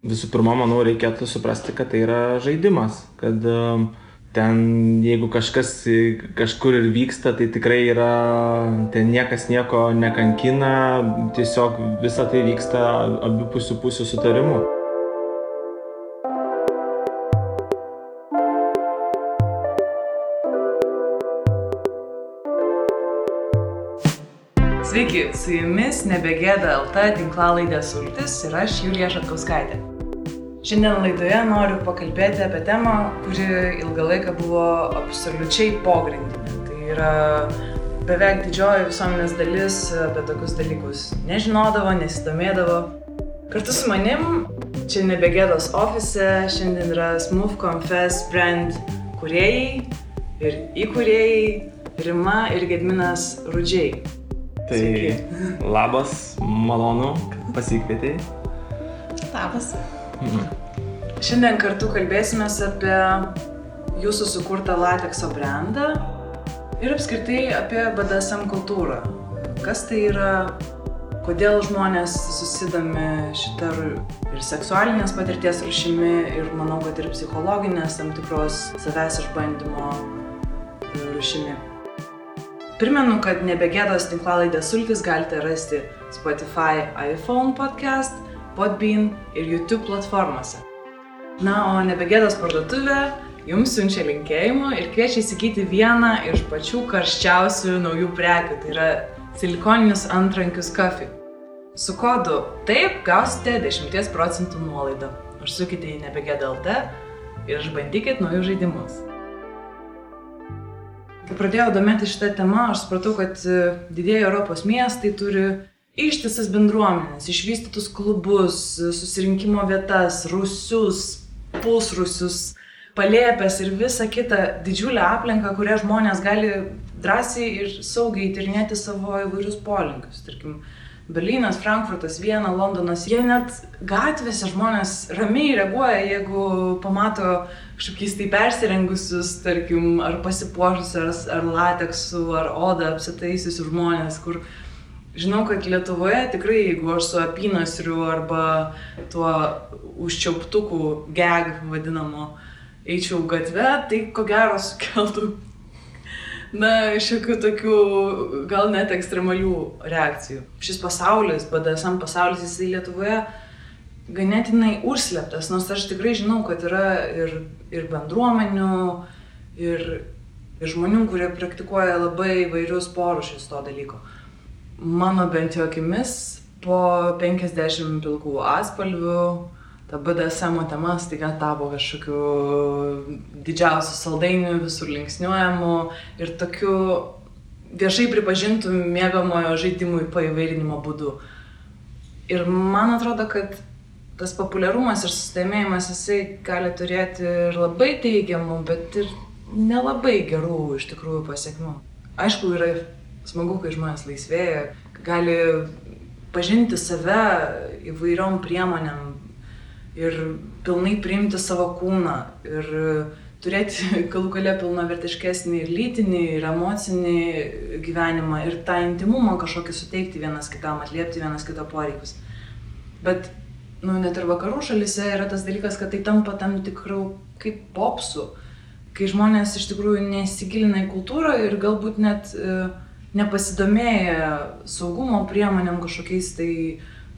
Visų pirma, manau, reikėtų suprasti, kad tai yra žaidimas, kad ten, jeigu kažkas kažkur ir vyksta, tai tikrai yra, ten niekas nieko nekankina, tiesiog visa tai vyksta abipusių pusių sutarimu. Sveiki, su jumis Nebegėda LT tinklalaidė Sultis ir aš Julija Šatkauskaitė. Šiandien laidoje noriu pakalbėti apie temą, kuri ilgą laiką buvo absoliučiai pogrindinė. Tai yra beveik didžioji visuomenės dalis apie tokius dalykus nežinodavo, nesidomėdavo. Kartu su manim čia Nebegėdos ofise šiandien yra Smooth Confess brand kūrėjai ir įkūrėjai Rima ir Gedminas Rudžiai. Tai labas, malonu, kad pasikvietei. Labas. Šiandien kartu kalbėsimės apie jūsų sukurtą latekso brandą ir apskritai apie BDSM kultūrą. Kas tai yra, kodėl žmonės susidomi šitą ir seksualinės patirties rūšimi ir manau, kad ir psichologinės tam tikros savęs išbandymo rūšimi. Primenu, kad Nebegėdos tinklalaidė Sultis galite rasti Spotify, iPhone podcast, Podbean ir YouTube platformose. Na, o Nebegėdos parduotuvė jums siunčia linkėjimų ir kviečia įsigyti vieną iš pačių karščiausių naujų prekių, tai yra silikoninius antrankius Kafi. Su kodu TAIP gausite 10% nuolaidą. Užsukite į Nebegėda LT ir išbandykit naujus žaidimus. Kai pradėjau domėtis šitą temą, aš supratau, kad didieji Europos miestai turi ištisas bendruomenės, išvystytus klubus, susirinkimo vietas, rūsius, pusrūsius, palėpes ir visą kitą didžiulę aplinką, kurią žmonės gali drąsiai ir saugiai tyrinėti savo įvairius polinkius. Tarkim, Berlynas, Frankfurtas, Viena, Londonas, jie net gatvėse žmonės ramiai reaguoja, jeigu pamato kažkokiais tai persirengusius, tarkim, ar pasipuošusius, ar lateksu, ar odą apsitaisiusius žmonės, kur žinau, kad Lietuvoje tikrai, jeigu aš su apynasriu arba tuo užčiauptuku gag vadinamo eičiau gatve, tai ko gero sukeltų šiokių tokių gal net ekstremalių reakcijų. Šis pasaulis, BDSM pasaulis, jisai Lietuvoje ganėtinai užslėptas, nors aš tikrai žinau, kad yra ir bendruomenių, ir žmonių, kurie praktikuoja labai įvairius porūšius to dalyko. Mano bent jau akimis, po 50 pilkų atspalvių, ta BDSM tema staiga tapo kažkokiu didžiausiu saldainiu, visur linksniuojamu ir tokiu viešai pripažintų mėgamojo žaidimų paįvairinimo būdu. Ir man atrodo, kad tas populiarumas ir susidomėjimas jisai gali turėti ir labai teigiamų, bet ir nelabai gerų iš tikrųjų pasekmių. Aišku, yra smagu, kai žmonės laisvėja, gali pažinti save įvairiom priemonėm ir pilnai priimti savo kūną ir turėti galų gale pilnavertiškesnį ir lytinį, ir emocinį gyvenimą ir tą intimumą kažkokį suteikti vienas kitam, atliepti vienas kito poreikius. Bet net ir vakarų šalyse yra tas dalykas, kad tai tampa tam tikrų kaip popsų, kai žmonės iš tikrųjų nesigilina į kultūrą ir galbūt net nepasidomėja saugumo priemonėm kažkokiais tai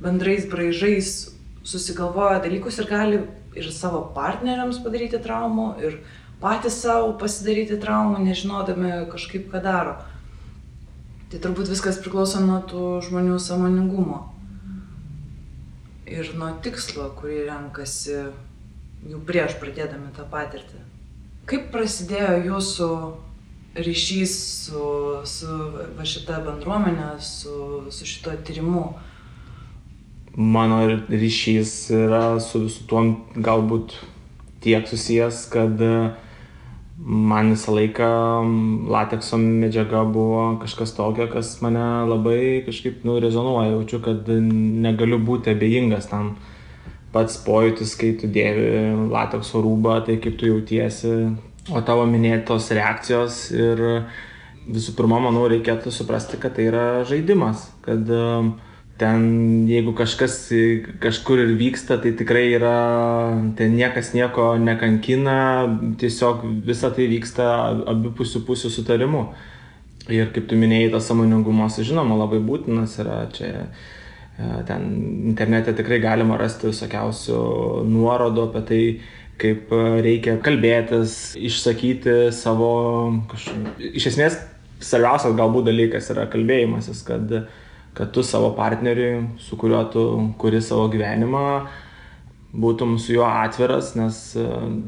bendrais braižais, susigalvoja dalykus ir gali ir savo partneriams padaryti traumų, ir patys savo pasidaryti traumų, nežinodami kažkaip ką daro. Tai turbūt viskas priklauso nuo tų žmonių sąmoningumo ir nuo tikslo, kurį renkasi jau prieš pradėdami tą patirtį. Kaip prasidėjo jūsų ryšys su šita bendruomenė, su šito tyrimu? Mano ryšys yra su visu tuo galbūt tiek susijęs, kad man visą laiką latekso medžiaga buvo kažkas tokio, kas mane labai kažkaip rezonuoja. Jaučiu, kad negaliu būti abejingas tam. Pats pojūtis, kai tu dėvi latekso rūbą, tai kaip tu jautiesi, o tavo minėtos reakcijos ir visų pirma, manau, reikėtų suprasti, kad tai yra žaidimas, kad ten jeigu kažkas kažkur ir vyksta, tai tikrai yra, ten niekas nieko nekankina, tiesiog visa tai vyksta abipusių sutarimu. Ir kaip tu minėjai, tas sąmoningumas, žinoma, labai būtinas yra čia. Ten internete tikrai galima rasti visokiausių nuorodų apie tai, kaip reikia kalbėtis, išsakyti savo Iš esmės, svarbiausias galbūt dalykas yra kalbėjimasis, kad tu savo partneriui, su kuriuo tu kuri savo gyvenimą, būtum su juo atviras, nes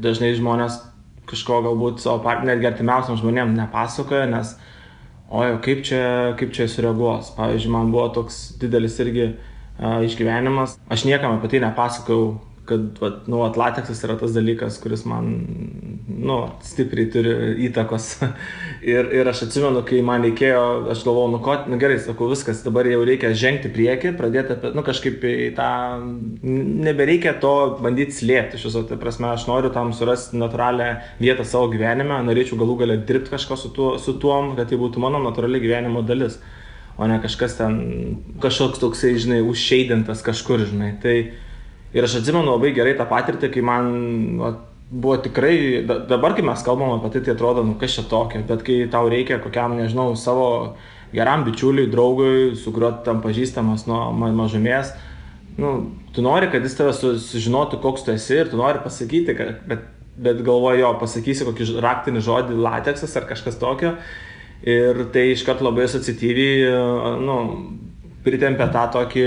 dažnai žmonės kažko galbūt savo partneriui, artimiausiam žmonėm nepasakoja, nes kaip čia sureaguos. Pavyzdžiui, man buvo toks didelis irgi išgyvenimas. Aš niekam apie tai nepasakojau, kad lateksas yra tas dalykas, kuris man stipriai turi įtakos. ir aš atsimenu, kai man reikėjo, aš galvojau, gerai, sakau, viskas, dabar jau reikia žengti priekį, pradėti apie, kažkaip į tą, nebereikia to bandyti slėpti. Iš viso, tai prasme, aš noriu tam surasti natūralią vietą savo gyvenime, norėčiau galų galia dirbti kažko su tuom, kad tai būtų mano natūrali gyvenimo dalis, o ne kažkas ten, kažkoks toksai, žinai, užšeidintas kažkur, žinai. Ir aš atsimenu labai gerai tą patirtį, kai man buvo tikrai, dabar kai mes kalbam apie tai atrodo, kas čia tokio, bet kai tau reikia kokiam, nežinau, savo geram bičiuliui, draugui, su kuriuo tam pažįstamas nuo mažumės, tu nori, kad jis tave sužinotų, koks tu esi ir tu nori pasakyti, bet galvoju, pasakysi kokį raktinį žodį lateksas ar kažkas tokio ir tai iškart labai asociatyviai, pritempia tą tokį,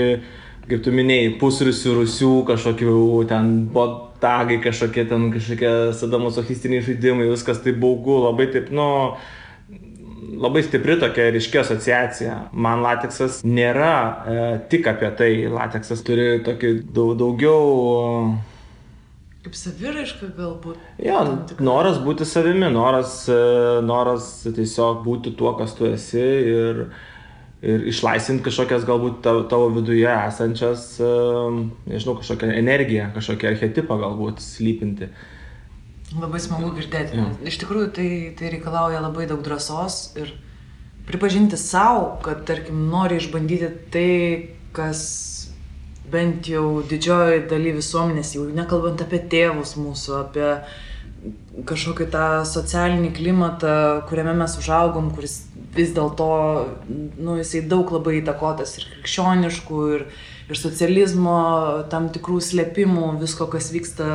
kaip tu minėjai, pusrusių, kažkokių ten botagai, kažkokie sadomasochistiniai žaidimai, viskas taip baugu, labai taip, labai stipri tokia ryški asociacija. Man lateksas nėra tik apie tai, lateksas turi tokį daugiau... Kaip saviraiška galbūt. Jo, noras būti savimi, noras tiesiog būti tuo, kas tu esi ir išlaisvinti kažkokias galbūt tavo viduje esančias, nežinau, kažkokią energiją, kažkokią archetipą galbūt slypinti. Labai smagu girdėti. Ja. Iš tikrųjų, tai reikalauja labai daug drąsos ir pripažinti savo, kad, tarkim, nori išbandyti tai, kas bent jau didžioji daly visuomenės, jau nekalbant apie tėvus mūsų, apie kažkokį tą socialinį klimatą, kuriame mes užaugom, kuris vis dėlto, jisai daug labai įtakotas ir krikščioniškų, ir socializmo, tam tikrų slėpimų, visko, kas vyksta,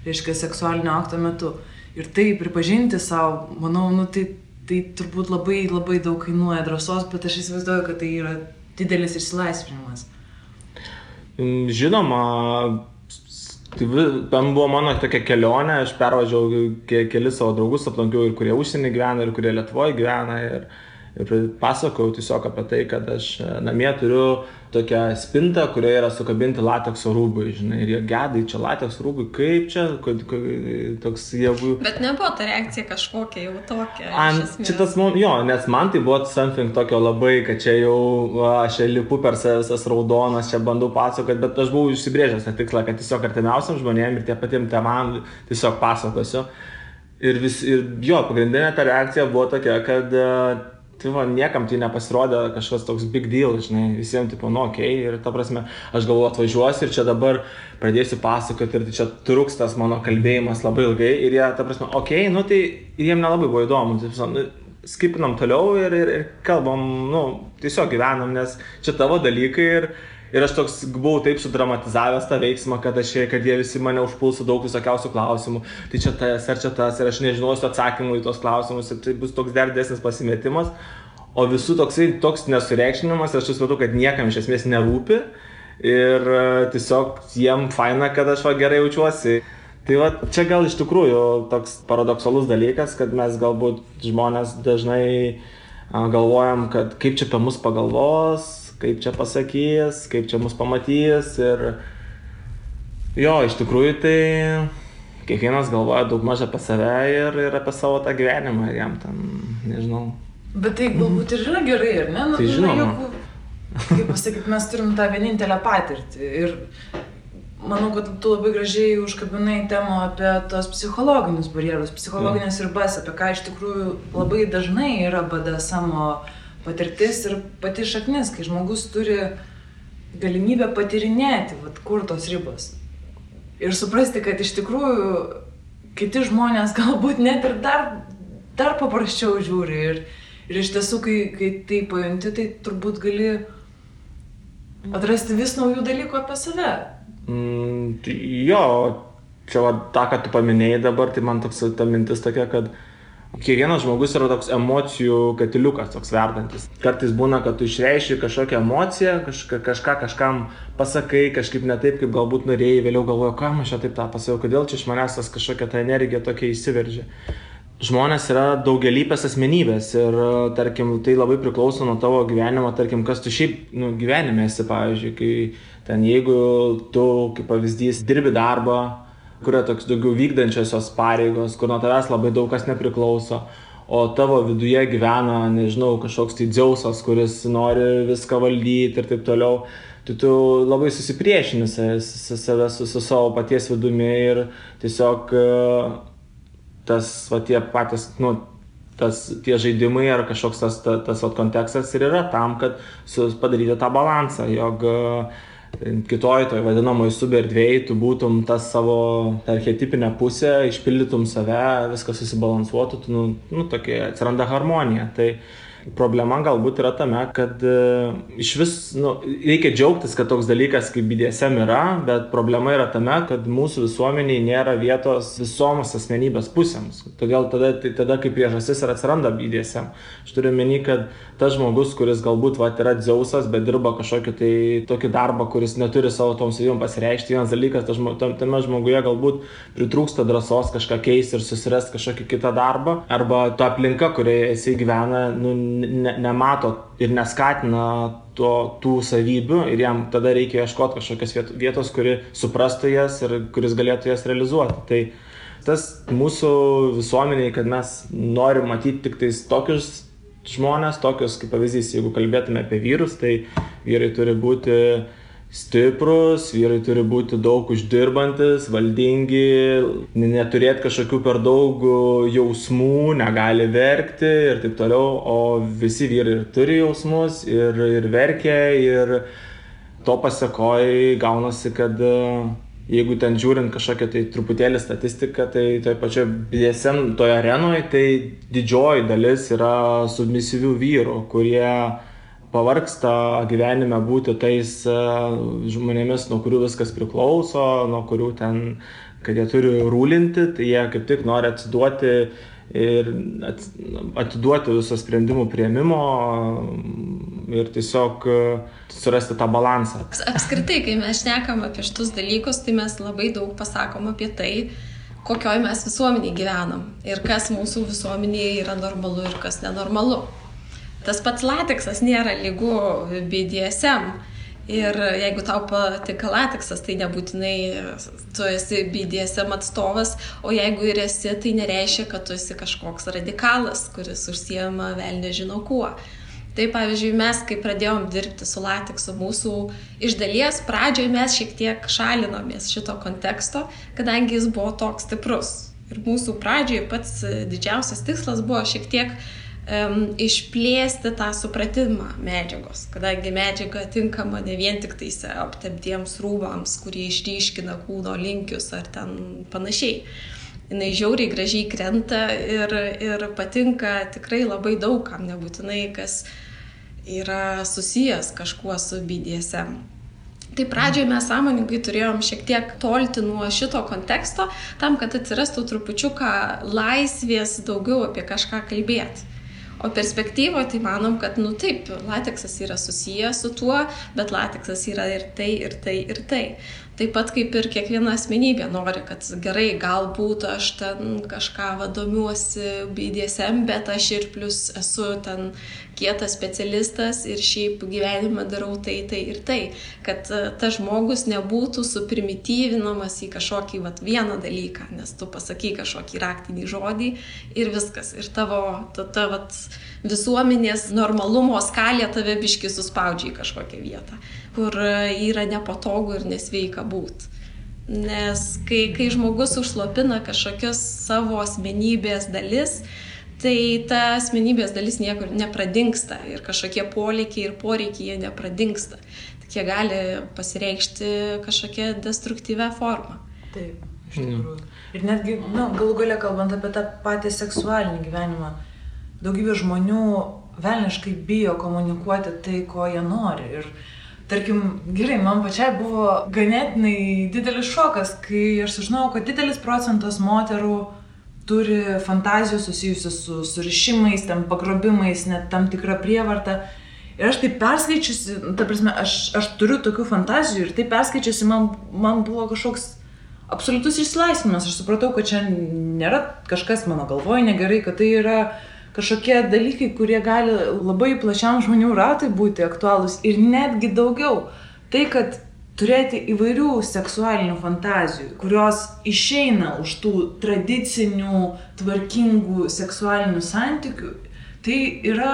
reiškia, seksualinio akto metu. Ir tai pripažinti savo, manau, tai turbūt labai, labai daug kainuoja drąsos, bet aš įsivaizduoju, kad tai yra didelis išsilaisvinimas. Žinoma, ten buvo mano tokia kelionė, aš pervažiavau kelis savo draugus, aplankiau ir kurie užsienį gyvena, ir kurie Lietuvoje gyvena, ir pasakojau tiesiog apie tai, kad aš namie turiu tokią spintą, kurioje yra sukabinti latekso rūbai, žinai, ir jie gedai, čia latekso rūbai, kaip čia, toks jėgų... Bet nebuvo ta reakcija kažkokia jau tokia, iš esmės. Nes man tai buvo something tokio labai, kad čia jau, aš lipu per visas raudonas, čia bandau pasakoti, bet aš buvau išsibrėžęs tą tikslą, kad tiesiog artimiausiam žmonėm ir tie patiem tėvam tiesiog pasakosiu. Ir pagrindinė ta reakcija buvo tokia, kad niekam tai nepasirodė kažkas toks big deal, žinai, visiems tipo, okei, ir ta prasme, aš galvoju atvažiuosiu ir čia dabar pradėsiu pasakoti ir tai čia truks tas mano kalbėjimas labai ilgai ir jie, ta prasme, okei, tai ir jiem nelabai buvo įdomu, skipinam toliau ir kalbam, tiesiog gyvenam, nes čia tavo dalykai ir aš toks buvau taip sudramatizavęs tą veiksmą, kad jie visi mane užpuls su daug visokiausių klausimų, tai čia tas ar čia tas ir aš nežinosiu atsakymų į tos klausimus ir tai bus toks dar didesnis pasimetimas, o visų toks nesureikšminimas ir aš supratau, kad niekam iš esmės nerūpi ir tiesiog jiem faina, kad aš gerai jaučiuosi. Tai čia gal iš tikrųjų toks paradoksalus dalykas, kad mes galbūt žmonės dažnai galvojam, kad kaip čia apie mus pagalvos, kaip čia pasakys, kaip čia mus pamatys ir iš tikrųjų tai kiekvienas galvoja daug maž apie save ir apie savo tą gyvenimą ir jam ten, nežinau. Bet tai galbūt ir yra gerai, ar ne? Tai žinoma. Kaip pasakyti, mes turim tą vienintelę patirtį ir manau, kad tu labai gražiai užkabinai temą apie tos psichologinius barjerus, psichologinės ribas, apie ką iš tikrųjų labai dažnai yra BDSM patirtis ir pati šaknis, kai žmogus turi galimybę patirinėti, kur tos ribos. Ir suprasti, kad iš tikrųjų kiti žmonės galbūt net ir dar paprasčiau žiūri. Ir iš tiesų, kai tai pajunti, tai turbūt gali atrasti vis naujų dalykų apie save. Jo, čia tą, ką tu paminėjai dabar, tai man toks ta mintis tokia, kad kiekvienas žmogus yra toks emocijų katiliukas, toks verdantis. Kartais būna, kad tu išreiški kažkokią emociją, kažką kažkam pasakai, kažkaip ne taip, kaip galbūt norėjai, vėliau galvoju, kam aš čia taip tą pasakiau, kodėl čia iš manęs tas kažkokia ta energija tokia įsiveržia. Žmonės yra daugialypės asmenybės ir, tarkim, tai labai priklauso nuo tavo gyvenimo, tarkim, kas tu šiaip gyvenime esi, pavyzdžiui, kai ten jeigu tu, kaip pavyzdys, dirbi darbą, kur yra toks daugiau vykdančiosios pareigos, kur nuo tavęs labai daug kas nepriklauso, o tavo viduje gyvena, nežinau, kažkoks tai Dzeusas, kuris nori viską valdyti ir taip toliau, tai tu labai susipriešini save su savo paties vidumi ir tiesiog tas, tie patys, tie žaidimai ar kažkoks tas kontekstas ir yra tam, kad padaryti tą balansą, jog kitoj toj vadinamoj suberdvėjai tu būtum tas savo archetipinę pusę, išpildytum save, viskas susibalansuotų, tokia atsiranda harmonija. Tai problema galbūt yra tame, kad iš vis, reikia džiaugtis, kad toks dalykas kaip BDSM yra, bet problema yra tame, kad mūsų visuomeniai nėra vietos visoms asmenybės pusėms. Todėl tada kaip priežastis ir atsiranda BDSM. Aš turiu meni, kad tas žmogus, kuris galbūt yra Dzeusas, bet dirba kažkokį tokį darbą, kuris neturi savo tom savybėm pasireikšti, vienas dalykas, tame žmoguje galbūt pritrūksta drąsos kažką keisti ir susirasti kažkokį kitą darbą, arba ta aplinka, kurioje jisai gyvena, nemato ir neskatina tų savybių ir jam tada reikia ieškoti kažkokios vietos, kuri suprastų jas ir kuris galėtų jas realizuoti. Tai tas mūsų visuomeniai, kad mes norim matyti tik tais tokius žmonės, tokius kaip pavyzdys, jeigu kalbėtume apie vyrus, tai vyrai turi būti stiprus, vyrai turi būti daug uždirbantis, valdingi, neturėti kažkokių per daug jausmų, negali verkti ir taip toliau, o visi vyrai turi jausmus ir verkia ir to pasekoj gaunasi, kad jeigu ten žiūrint kažkokią tai truputėlį statistiką, tai toje pačioje BDSM toje arenoje, tai didžioji dalis yra submisyvių vyrų, kurie pavargsta gyvenime būti tais žmonėmis, nuo kurių viskas priklauso, nuo kurių ten, kad jie turi rūlinti, tai jie kaip tik nori atsiduoti ir atiduoti viso sprendimų priėmimo ir tiesiog surasti tą balansą. Apskritai, kai mes šnekam apie šitus dalykus, tai mes labai daug pasakom apie tai, kokioj mes visuomeniai gyvenam ir kas mūsų visuomenėje yra normalu ir kas nenormalu. Tas pats lateksas nėra lygu BDSM ir jeigu tau patinka lateksas, tai nebūtinai tu esi BDSM atstovas, o jeigu ir esi, tai nereiškia, kad tu esi kažkoks radikalas, kuris užsiema velnias žino kuo. Tai pavyzdžiui, mes, kai pradėjom dirbti su lateksu, mūsų iš dalies pradžioje mes šiek tiek šalinomės šito konteksto, kadangi jis buvo toks stiprus. Ir mūsų pradžioje pats didžiausias tikslas buvo šiek tiek išplėsti tą supratimą medžiagos, kadangi medžiaga tinkama ne vien tik tais aptemptiems rūbams, kurie išryškina kūno linkius ar ten panašiai. Jinai žiauriai gražiai krenta ir patinka tikrai labai daug kam, nebūtinai kas yra susijęs kažkuo su BDSM. Tai pradžioje mes sąmoningai turėjom šiek tiek tolti nuo šito konteksto, tam, kad atsirastų trupučiuką laisvės daugiau apie kažką kalbėti. O perspektyvoje tai manom, kad taip, lateksas yra susijęs su tuo, bet lateksas yra ir tai, ir tai, ir tai. Taip pat kaip ir kiekviena asmenybė nori, kad gerai, galbūt aš ten kažką domiuosi BDSM, bet aš ir plus esu ten kietas specialistas ir šiaip gyvenime darau tai ir tai. Kad tas žmogus nebūtų suprimityvinamas į kažkokį vieną dalyką, nes tu pasakai kažkokį raktinį žodį ir viskas. Ir tavo visuomenės normalumo skalė tave biškį suspaudžia į kažkokią vietą, kur yra nepatogu ir nesveika būt. Nes kai žmogus užslopina kažkokios savo asmenybės dalis, tai ta asmenybės dalis niekur nepradingsta ir kažkokie polėkiai ir poreikiai jie nepradingsta. tik jie gali pasireikšti kažkokią destruktyvę formą. Taip, iš tikrųjų. Ir netgi, galų gale kalbant apie tą patį seksualinį gyvenimą, daugybė žmonių velniškai bijo komunikuoti tai, ko jie nori. Ir tarkim, gerai, man pačiai buvo ganėtinai didelis šokas, kai aš sužinojau, kad didelis procentas moterų turi fantazijų susijusių su surišimais, ten pagrobimais, net tam tikrą prievartą. Ir aš tai perskaičiusi, ta prasme, aš turiu tokių fantazijų ir tai perskaičiusi man buvo kažkoks absoliutus išsilaisvinimas. Aš supratau, kad čia nėra kažkas mano galvoje negerai, kad tai yra kažkokie dalykai, kurie gali labai plačiam žmonių ratui būti aktualūs ir netgi daugiau. Tai, kad turėti įvairių seksualinių fantazijų, kurios išeina už tų tradicinių, tvarkingų seksualinių santykių, tai yra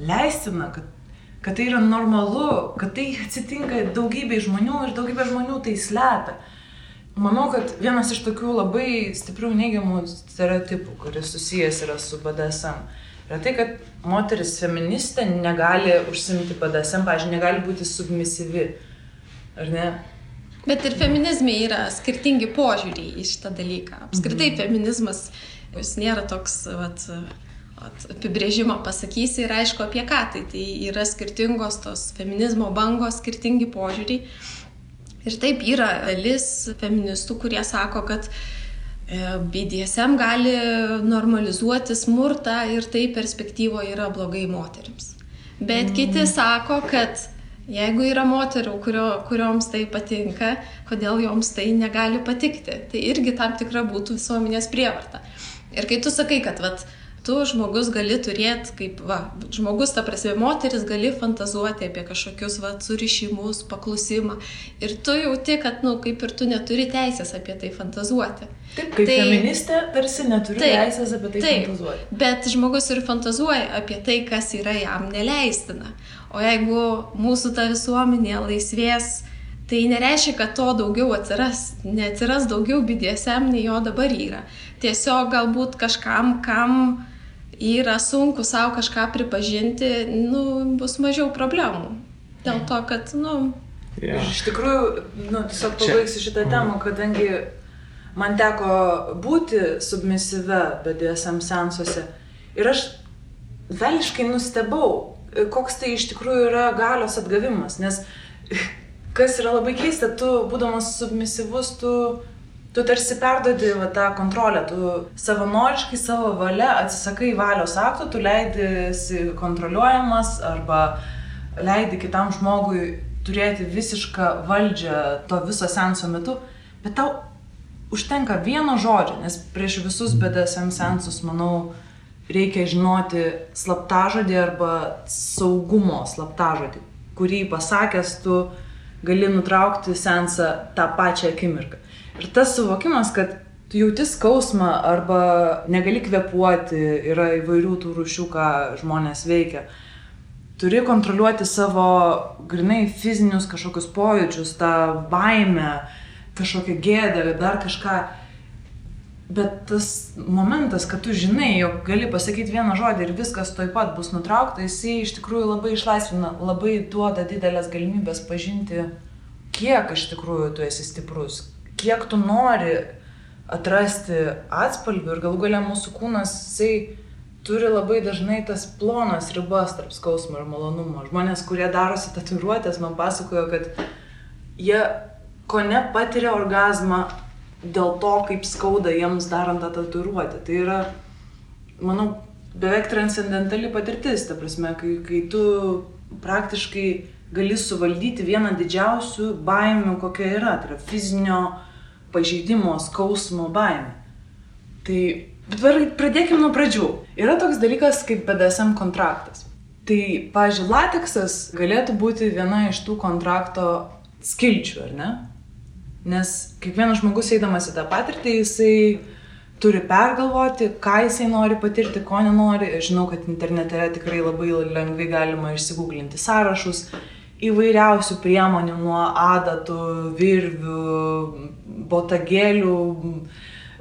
leistina, kad tai yra normalu, kad tai atsitinka daugybei žmonių ir daugybė žmonių tai slepia. Manau, kad vienas iš tokių labai stiprių neigiamų stereotipų, kuris susijęs yra su BDSM, yra tai, kad moteris feministė negali užsiimti BDSM, pavyzdžiui, negali būti submisyvi, ar ne? Bet ir feminizme yra skirtingi požiūriai į šitą dalyką. Apskritai feminizmas, jis nėra toks apibrėžimą pasakysi ir aišku apie ką. Tai yra skirtingos tos feminizmo bangos, skirtingi požiūriai. Ir taip yra dalis feministų, kurie sako, kad BDSM gali normalizuoti smurtą ir tai perspektyvoje yra blogai moterims. Bet kiti sako, kad jeigu yra moterų, kurioms tai patinka, kodėl joms tai negali patikti. Tai irgi tam tikra būtų visuomenės prievarta. Ir kai tu sakai, kad tu žmogus gali turėti, žmogus, ta prasme, moteris gali fantazuoti apie kažkokius surišimus, paklusimą. Ir tu jauti, kad, kaip ir tu neturi teisės apie tai fantazuoti. Taip, kaip feministė tarsi neturi teisės apie tai fantazuoti. Bet žmogus ir fantazuoja apie tai, kas yra jam neleistina. O jeigu mūsų ta visuomenė laisvės, tai nereiškia, kad to daugiau neatsiras daugiau BDSM, nei jo dabar yra. Tiesiog galbūt kažkam, kam yra sunku savo kažką pripažinti, bus mažiau problemų. Dėl to, kad, Iš tikrųjų, tiesiog pabaigsiu šitą temą, kadangi man teko būti submisyve BDSM seansuose ir aš velniškai nustebau, koks tai iš tikrųjų yra galios atgavimas, nes kas yra labai keista, tu būdamas submisyvus, tu tarsi perdodi tą kontrolę, tu savanoriškai savo valia atsisakai valios akto, tu leidisi kontroliuojamas arba leidi kitam žmogui turėti visišką valdžią to viso seanso metu, bet tau užtenka vieno žodžio, nes prieš visus BDSM seansus, manau, reikia žinoti slaptažodį arba saugumo slaptažodį, kurį pasakęs tu gali nutraukti seansą tą pačią akimirką. Ir tas suvokimas, kad tu jauti skausmą arba negali kvėpuoti, yra įvairių tų rūšių, ką žmonės veikia. Turi kontroliuoti savo grynai fizinius kažkokius pojūčius, tą baimę, kažkokią gėdą, dar kažką. Bet tas momentas, kad tu žinai, jog gali pasakyti vieną žodį ir viskas tuoj pat bus nutraukta, jisai iš tikrųjų labai išlaisvina, labai duoda didelės galimybės pažinti, kiek iš tikrųjų tu esi stiprus, kiek tu nori atrasti atspalvių ir galų gale mūsų kūnas, jisai turi labai dažnai tas plonas ribas tarp skausmo ir malonumo. Žmonės, kurie darosi tatuiruotės, man pasakojo, kad jie kone patiria orgazmą dėl to, kaip skauda jiems darant tą tatuiruotę. Tai yra, manau, beveik transcendentali patirtis, ta prasme, kai tu praktiškai gali suvaldyti vieną didžiausių baimių, kokia yra, tai yra fizinio pažeidimo, skausmo baimė. Tai pradėkime nuo pradžių. Yra toks dalykas kaip BDSM kontraktas. Tai, pavyzdžiui, lateksas galėtų būti viena iš tų kontrakto skilčių, ar ne? Nes kiekvienas žmogus eidamas į tą patirtį, jisai turi pergalvoti, ką jisai nori patirti, ko nenori. Aš žinau, kad internete tikrai labai lengvai galima išsigūglinti sąrašus įvairiausių priemonių nuo adatų, virvių, botagėlių,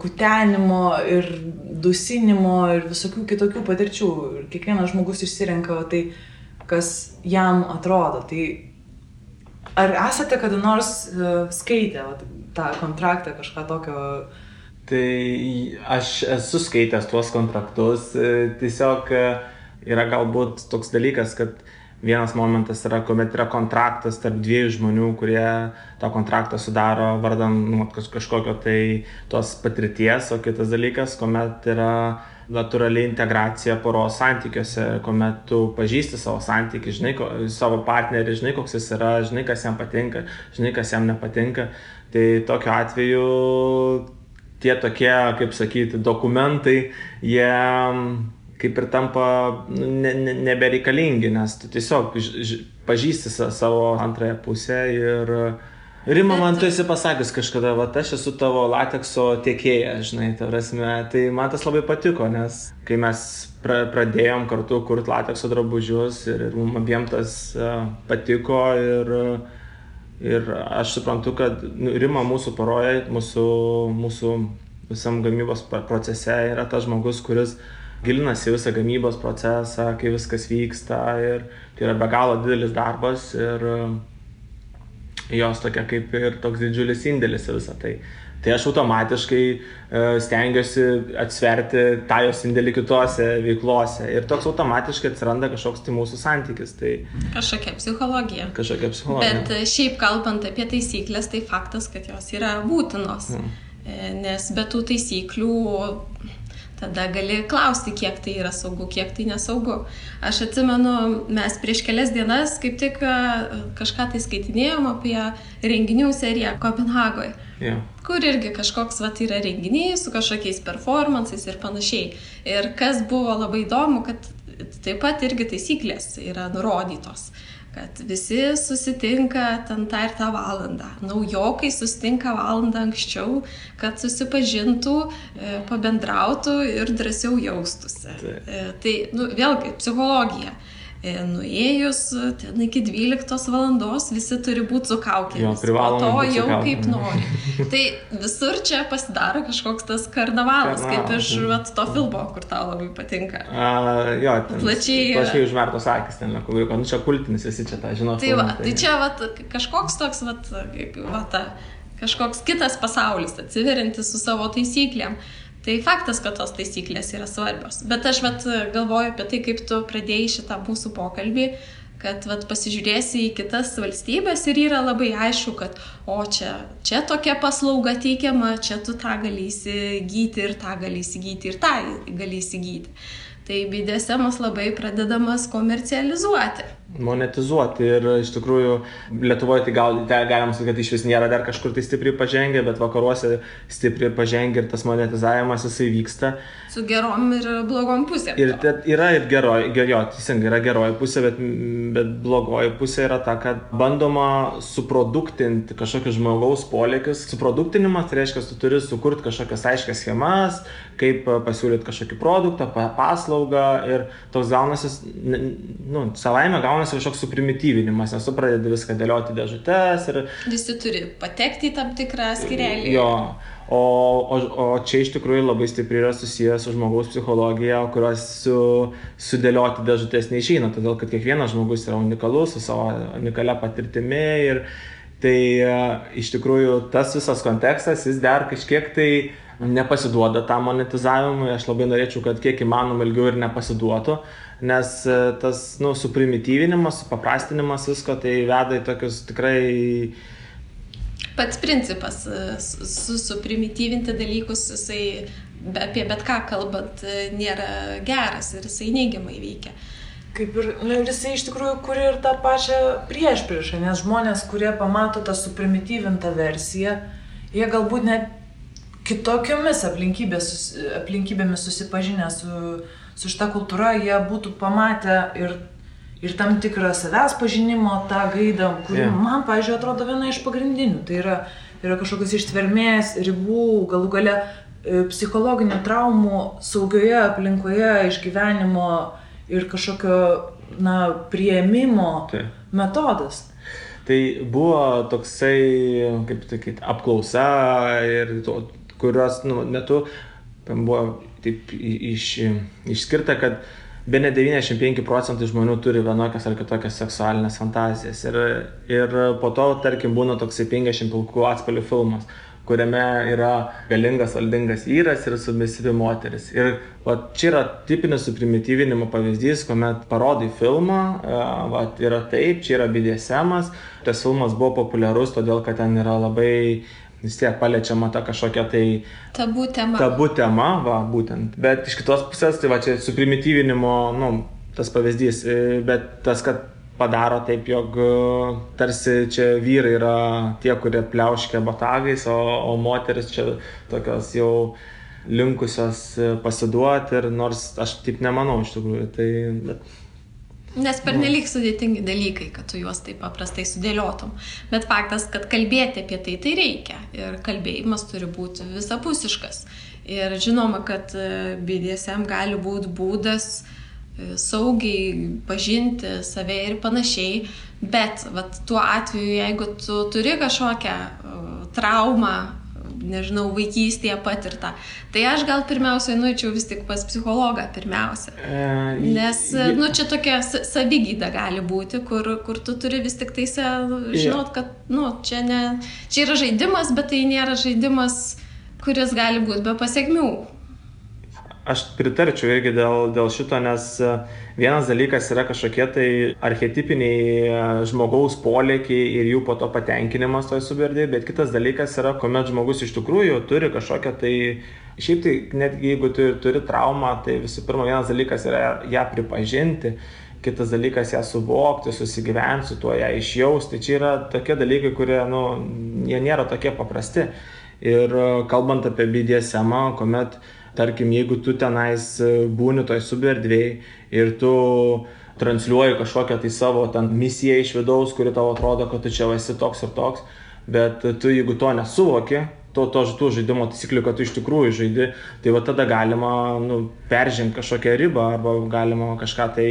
kutenimo ir dusinimo ir visokių kitokių patirčių. Ir kiekvienas žmogus išsirenka tai, kas jam atrodo. Tai Ar esate kada nors skaitę tą kontraktą, kažką tokio? Tai aš esu skaitęs tuos kontraktus, tiesiog yra galbūt toks dalykas, kad vienas momentas yra, kuomet yra kontraktas tarp dviejų žmonių, kurie tą kontraktą sudaro vardan kažkokio tai tos patirties, o kitas dalykas, kuomet yra natūrali integracija poros santykiuose, kuomet tu pažįsti savo santykį, žinai savo partnerį, žinai koks jis yra, žinai kas jam patinka, žinai kas jam nepatinka. Tai tokiu atveju tie tokie, kaip sakyti, dokumentai, jie kaip ir tampa nebereikalingi, nes tu tiesiog pažįsti savo antrąją pusę ir Rima, man tu esi pasakęs kažkada, aš esu tavo latekso tiekėja, žinai, tai man tas labai patiko, nes kai mes pradėjom kartu kurti latekso drabužius ir mums abiem tas patiko ir aš suprantu, kad Rima mūsų poroje, mūsų visam gamybos procese yra tas žmogus, kuris gilinasi visą gamybos procesą, kai viskas vyksta ir tai yra be galo didelis darbas ir jos tokia kaip ir toks didžiulis indėlis į visą tai. Tai aš automatiškai stengiuosi atsverti tą jos indėlį kitose veiklose ir toks automatiškai atsiranda kažkoks tai mūsų santykis. Tai kažkokia psichologija. Bet šiaip kalbant apie taisyklės, tai faktas, kad jos yra būtinos, nes be tų taisyklių tada gali klausti, kiek tai yra saugu, kiek tai nesaugu. Aš atsimenu, mes prieš kelias dienas kaip tik kažką tai skaitinėjom apie renginių seriją Kopenhagoje, kur irgi kažkoks yra renginiai su kažkokiais performansais ir panašiai. Ir kas buvo labai įdomu, kad taip pat irgi taisyklės yra nurodytos, kad visi susitinka ten tą ir tą valandą. Naujokai susitinka valandą anksčiau, kad susipažintų, pabendrautų ir drąsiau jaustųsi. Tai vėlgi psichologija. Nuėjus ten iki 12 valandos visi turi būti su kaukėmis, po to jau kaip nori. Tai visur čia pasidaro kažkoks tas karnavalas, kaip iš to filmo, kur tau labai patinka. Plačiai užmertos akis ten, kur čia kultinis, visi čia tą žino. Tai čia kažkoks toks, kažkoks kitas pasaulis atsiveriantis su savo taisyklėm. Tai faktas, kad tos taisyklės yra svarbios. Bet aš galvoju apie tai, kaip tu pradėjai šitą mūsų pokalbį, kad pasižiūrėsi į kitas valstybės ir yra labai aišku, kad čia tokia paslauga teikiama, čia tu tą gali įsigyti ir tą gali įsigyti ir tą gali įsigyti. Tai BDSM-as labai pradedamas komercializuoti. Monetizuoti ir iš tikrųjų Lietuvoje tai galim sakyti, kad iš vis nėra dar kažkur tai stipriai pažengę, bet vakaruose stipriai pažengę ir tas monetizavimas jisai vyksta. Su gerom ir blogom pusėm. Ir yra ir teisingai, yra geroji pusė, bet blogoji pusė yra ta, kad bandoma suproduktinti kažkokius žmogaus polėkius. Suproduktinimas tai reiškia, tu turi sukurti kažkokias aiškias schemas, kaip pasiūlyti kažkokį produktą, paslaugą ir toks gaunasi, savaime gaunasi kažkoks suprimityvinimas, nes tu pradedi viską dėlioti dėžutes ir visi turi patekti į tam tikrą skyrelį. Jo, o čia iš tikrųjų labai stipriai yra susijęs su žmogaus psichologija, kurios sudėlioti dėžutes neišeina, todėl kad kiekvienas žmogus yra unikalus, su savo unikalia patirtimi ir tai iš tikrųjų tas visas kontekstas, jis dar kažkiek tai nepasiduoda tam monetizavimui. Aš labai norėčiau, kad kiek įmanoma ilgiau ir nepasiduotų, nes tas suprimityvinimas, supaprastinimas visko tai veda į tokius tikrai... Pats principas suprimityvinti dalykus, jisai apie bet ką kalbant nėra geras ir jisai neigiamai veikia. Kaip ir jisai iš tikrųjų kuria ir tą pačią priešpriešą, nes žmonės, kurie pamato tą suprimityvintą versiją, jie galbūt net kitokiomis aplinkybėmis susipažinę su šita kultūra, jie būtų pamatę ir tam tikrą savęs pažinimo tą gaidą, kuri man, pavyzdžiui, atrodo viena iš pagrindinių. Tai yra kažkokios ištvermės, ribų, galų gale psichologinių traumų saugioje aplinkoje išgyvenimo ir kažkokio priėmimo metodas. Tai buvo toksai, kaip sakyti, apklausa ir kurios metu buvo taip išskirta, kad bene 95% žmonių turi vienokias ar kitokias seksualinės fantazijas. Ir po to, tarkim, būna toksai 50 pilkų atspalvių filmas, kuriame yra galingas, valdingas vyras ir submisyvi moteris. Ir čia yra tipinis suprimityvinimo pavyzdys, kuomet parodai filmą, yra taip, čia yra BDSM-as. Tas filmas buvo populiarus, todėl kad ten yra labai vis tiek paliečiama ta kažkokia tai tabų tema. Tabų tema, būtent. Bet iš kitos pusės, tai čia suprimityvinimo, tas pavyzdys, bet tas, kad padaro taip, jog tarsi čia vyrai yra tie, kurie pliauškia botagais, o moteris čia tokios jau linkusios pasiduoti, ir nors aš taip nemanau iš tikrųjų. Bet... Nes pernelyg sudėtingi dalykai, kad tu juos taip paprastai sudėliotum. Bet faktas, kad kalbėti apie tai reikia. Ir kalbėjimas turi būti visapusiškas. Ir žinoma, kad BDSM gali būti būdas saugiai pažinti save ir panašiai. Bet tuo atveju, jeigu tu turi kažkokią traumą, nežinau, vaikystėje patirtą, tai aš gal pirmiausiai nueičiau vis tik pas psichologą pirmiausia. Nes, čia tokia savigyda gali būti, kur tu turi vis tik tai žinot, kad, čia yra žaidimas, bet tai nėra žaidimas, kuris gali būti be pasekmių. Aš pritarčiau irgi dėl šito, nes vienas dalykas yra kažkokie tai archetipiniai žmogaus polėkiai ir jų po to patenkinimas toj suberdėje, bet kitas dalykas yra, kuomet žmogus iš tikrųjų turi kažkokią tai, šiaip tai netgi jeigu tu turi traumą, tai visų pirma vienas dalykas yra ją pripažinti, kitas dalykas ją suvokti, susigyventi su tuo, ją išjausti. Tai čia yra tokie dalykai, kurie, jie nėra tokie paprasti. Ir kalbant apie BDSM, kuomet tarkim, jeigu tu tenais būni toj suberdvėj ir tu transliuoji kažkokią tai savo misiją iš vidaus, kuri tau atrodo, kad tu čia esi toks ir toks, bet tu jeigu to nesuvoki, tų žaidimo taisyklių, kad tu iš tikrųjų žaidi, tai tada galima peržengti kažkokią ribą arba galima kažką tai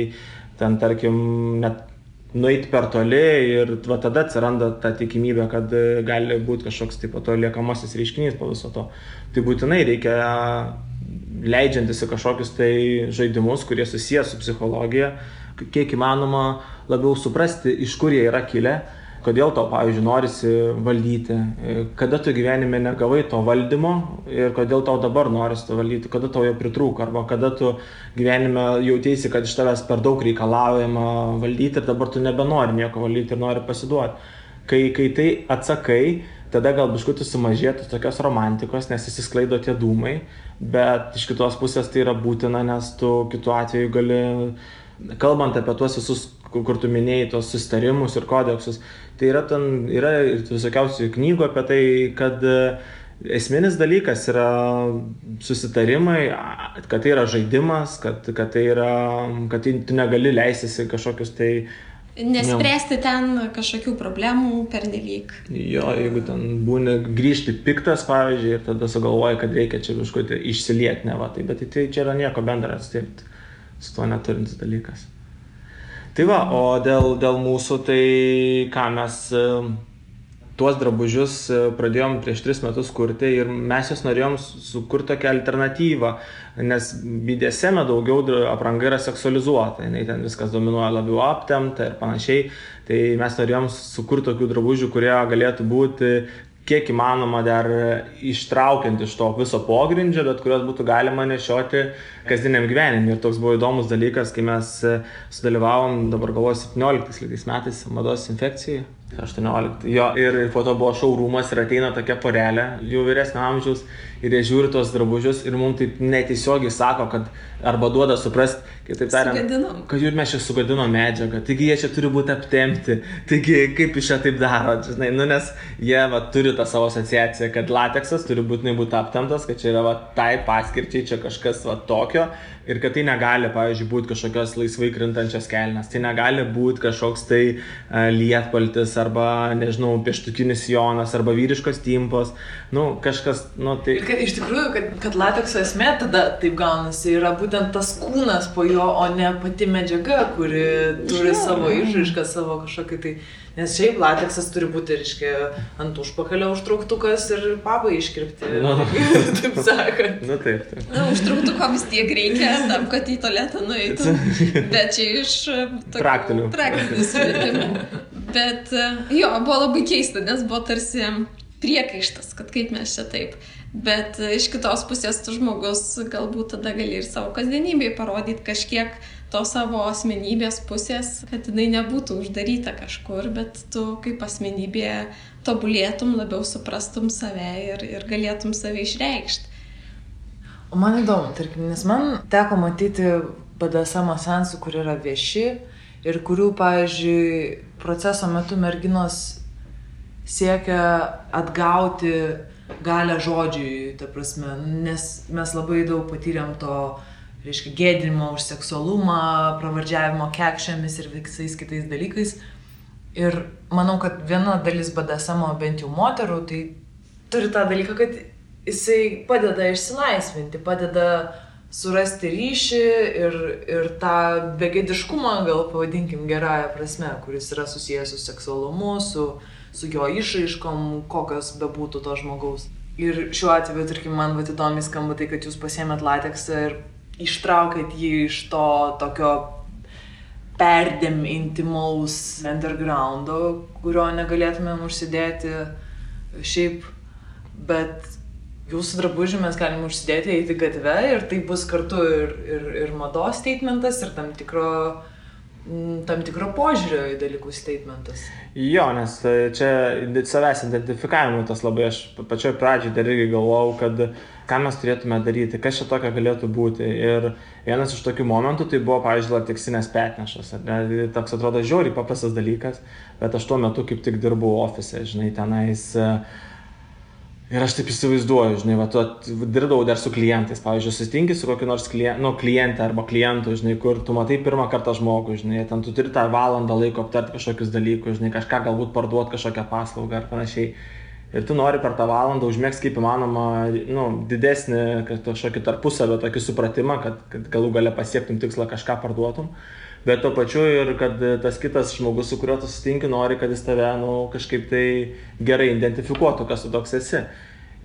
ten, tarkim, net nueiti per toli ir tada atsiranda ta tikimybė, kad gali būti kažkoks taip to liekamasis reiškinys po viso to. Tai būtinai reikia leidžiantis į kažkokius tai žaidimus, kurie susiję su psichologija, kiek įmanoma labiau suprasti, iš kur jie yra kilę, kodėl tau, pavyzdžiui, norisi valdyti, kada tu gyvenime negavai to valdymo ir kodėl tau dabar norisi to valdyti, kada tau jo pritrūko, arba kada tu gyvenime jautėsi, kad iš tavęs per daug reikalaujama valdyti ir dabar tu nebenori nieko valdyti ir nori pasiduoti. Kai tai atsakai, tada gal biškutį sumažėtų tokios romantikos, nes įsisklaido tie dūmai, bet iš kitos pusės tai yra būtina, nes tu kitu atveju gali, kalbant apie tuos visus, kur tu minėjai, tos susitarimus ir kodeksus, tai yra ir visokiausių knygų apie tai, kad esminis dalykas yra susitarimai, kad tai yra žaidimas, kad tu negali leistis į kažkokius tai nespręsti ten kažkokių problemų pernelyg. Jo, jeigu ten būni grįžti piktas, pavyzdžiui, ir tada sugalvoji, kad reikia čia kažkokį išsilieti, bet tai čia yra nieko bendra, su tuo neturintis dalykas. Tai o dėl mūsų, tai ką mes tuos drabužius pradėjom prieš 3 metus kurti ir mes jos norėjom sukurti tokią alternatyvą, nes BDSM daugiau apranga yra seksualizuota, ten viskas dominuoja labiau aptempta ir panašiai, tai mes norėjom sukurti tokių drabužių, kurie galėtų būti kiek įmanoma dar ištraukiant iš to viso pogrindžio, bet kurios būtų galima nešioti kasdieniam gyvenimui. Ir toks buvo įdomus dalykas, kai mes sudalyvavom, dabar galvoju, 17 metais mados infekcijai. 18. Jo, ir po to buvo šou rūmas ir ateina tokia porelė, jų vyresnio amžiaus, ir jie žiūri tos drabužius ir mums taip netiesiogiai sako, kad arba duoda suprast, kitaip tariant, kad jų mes čia sugadinom medžiagą, taigi jie čia turi būti aptempti, taigi kaip iš čia taip daro, žinai, nes jie turi tą savo asociaciją, kad lateksas turi būtinai būti aptemptas, kad čia yra tai paskirčiai, čia kažkas tokio ir kad tai negali, pavyzdžiui, būti kažkokios laisvai krintančios kelnes, tai negali būti kažkoks tai lietpaltis arba, nežinau, pieštukinis sijonas, arba vyriškos timpos, kažkas, tai... Kad iš tikrųjų, kad latekso esmė tada taip gaunasi, yra būtent tas kūnas po jo, o ne pati medžiaga, kuri turi savo išraišką, savo kažkokį tai... Nes šiaip lateksas turi būti, reiškia, ant užpakalio užtrauktukas ir pabai iškirpti, taip sakant. Taip. Užtrauktuko vis tiek reikia tam, kad į tualetą nueitų, bet čia iš praktinių sumetimų. Bet jo, buvo labai keista, nes buvo tarsi priekaištas, kad kaip mes čia taip. Bet iš kitos pusės tu žmogus galbūt tada gali ir savo kasdienybėje parodyti kažkiek to savo asmenybės pusės, kad jinai nebūtų uždaryta kažkur, bet tu kaip asmenybė tobulėtum, labiau suprastum save ir galėtum save išreikšti. O man įdomu, tarkim, nes man teko matyti BDSM seansų, kur yra vieši ir kurių, pavyzdžiui, proceso metu merginos siekia atgauti galią žodžiui, ta prasme, nes mes labai daug patyrėm to, reiškia, gėdinimo už seksualumą, pravardžiavimo kekšėmis ir visais kitais dalykais. Ir manau, kad viena dalis BDSM, bent jau moterų, tai turi tą dalyką, kad jisai padeda išsilaisvinti, padeda surasti ryšį ir tą begėdiškumą, gal pavadinkim gerąją prasme, kuris yra susijęs su seksualumu, su jo išraiškom, kokios bebūtų to žmogaus. Ir šiuo atveju, tarkim, man įdomiai skamba tai, kad jūs pasiėmėt lateksą ir ištraukėt jį iš to tokio perdėm intimaus undergroundo, kurio negalėtumėm užsidėti šiaip, bet jūsų drabužį mes galim užsidėti, eiti gatve ir tai bus kartu ir mados statementas, ir tam tikro požiūrio į dalykų statementas. Jo, nes čia savęs identifikavimui tas labai, aš pačioj pradžiai dar irgi galvojau, kad ką mes turėtume daryti, kas čia tokio galėtų būti. Ir vienas iš tokių momentų tai buvo, pavyzdžiui, lateksinės petnešos. Toks atrodo žiauriai paprastas dalykas, bet aš tuo metu kaip tik dirbau ofise, žinai, tenais. Ir aš taip įsivaizduoju, žinai, dirbdavau dar su klientais, pavyzdžiui, susitinki su kokiu nors klientė arba klientu, žinai, kur tu matai pirmą kartą žmogų, žinai, ten tu turi tą valandą laiko aptarti kažkokius dalykus, žinai, kažką galbūt parduoti, kažkokią paslaugą ar panašiai. Ir tu nori per tą valandą užmėgsti kaip įmanoma, didesnį kažkokį tarpusavio tokį supratimą, kad galų gale pasiektum tikslą, kažką parduotum. Bet tuo pačiu ir kad tas kitas žmogus, su kuriuo tu susitinki, nori, kad jis tave kažkaip tai gerai identifikuotų, kas tu toks esi.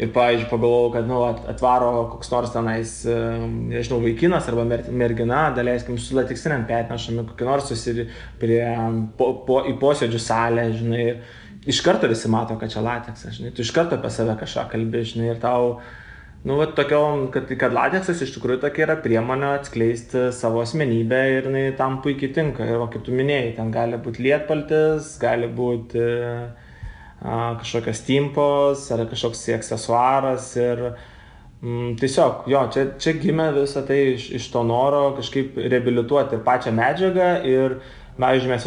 Ir, pavyzdžiui, pagalvojau, kad atvaro koks nors tenais, nežinau, vaikinas arba mergina, daleiskim, su lateksiniam petnešami, kokį nors į posėdžių salę, žinai. Iš karto visi mato, kad čia lateksas, žinai. Tu iš karto apie save kažką kalbi, žinai, ir tau... kad lateksas iš tikrųjų tokia yra priemonė atskleisti savo asmenybę ir jinai tam puikiai tinka. Ir kaip tu minėjai, ten gali būti lietpaltis, gali būti kažkokios timpos ar kažkoks aksesuaras. Ir tiesiog, jo, čia gimė visą tai iš to noro kažkaip reabilituoti ir pačią medžiagą. Ir pavyzdžiui, mes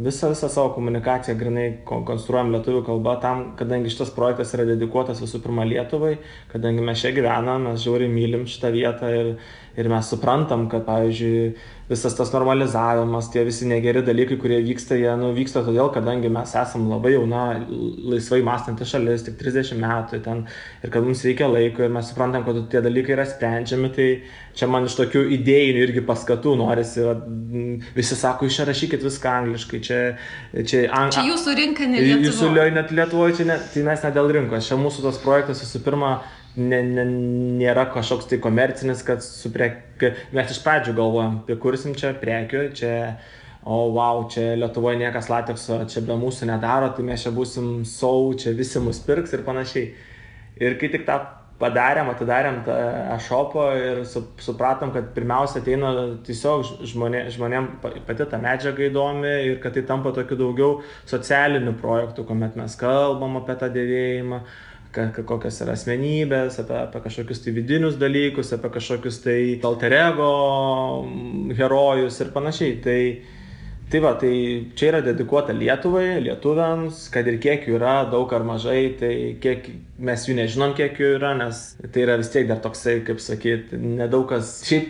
visą savo komunikaciją grinai konstruojam lietuvių kalba tam, kadangi šitas projektas yra dedikuotas visų pirma Lietuvai, kadangi mes čia gyvenam, mes žiauriai mylim šitą vietą ir mes suprantam, kad, pavyzdžiui, visas tas normalizavimas, tie visi negeri dalykai, kurie vyksta, jie vyksta todėl, kadangi mes esam labai jauna, laisvai mąstanti šalis, tik 30 metų ten, ir kad mums reikia laiko ir mes suprantam, kad tie dalykai yra sprendžiami, tai čia man iš tokių idėjinių irgi paskatų norisi, visi sako, išrašykit viską angliškai, čia jūsų rinka, ne Lietuvoje. Jūsų net Lietuvoje, tai mes ne dėl rinkos, čia mūsų tas projektas visų pirma nėra kažkoks tai komercinis, kad mes iš pradžių galvojam, kursim čia prekių, čia, čia Lietuvoje niekas latekso, čia be mūsų nedaro, tai mes čia būsim čia visi mus pirks ir panašiai. Ir kai tik tą atidarėm tą e-shopą ir supratom, kad pirmiausia ateina tiesiog žmonėm pati ta medžiaga įdomi ir kad tai tampa tokiu daugiau socialiniu projektu, kuomet mes kalbam apie tą dėvėjimą, kokios yra asmenybės, apie kažkokius tai vidinius dalykus, apie kažkokius tai alter ego herojus ir panašiai. Tai čia yra dedikuota Lietuvai, lietuviams, kad ir kiek jų yra, daug ar mažai, tai kiek mes jų nežinom, kiek jų yra, nes tai yra vis tiek dar toksai, kaip sakyt, nedaug kas. Šiaip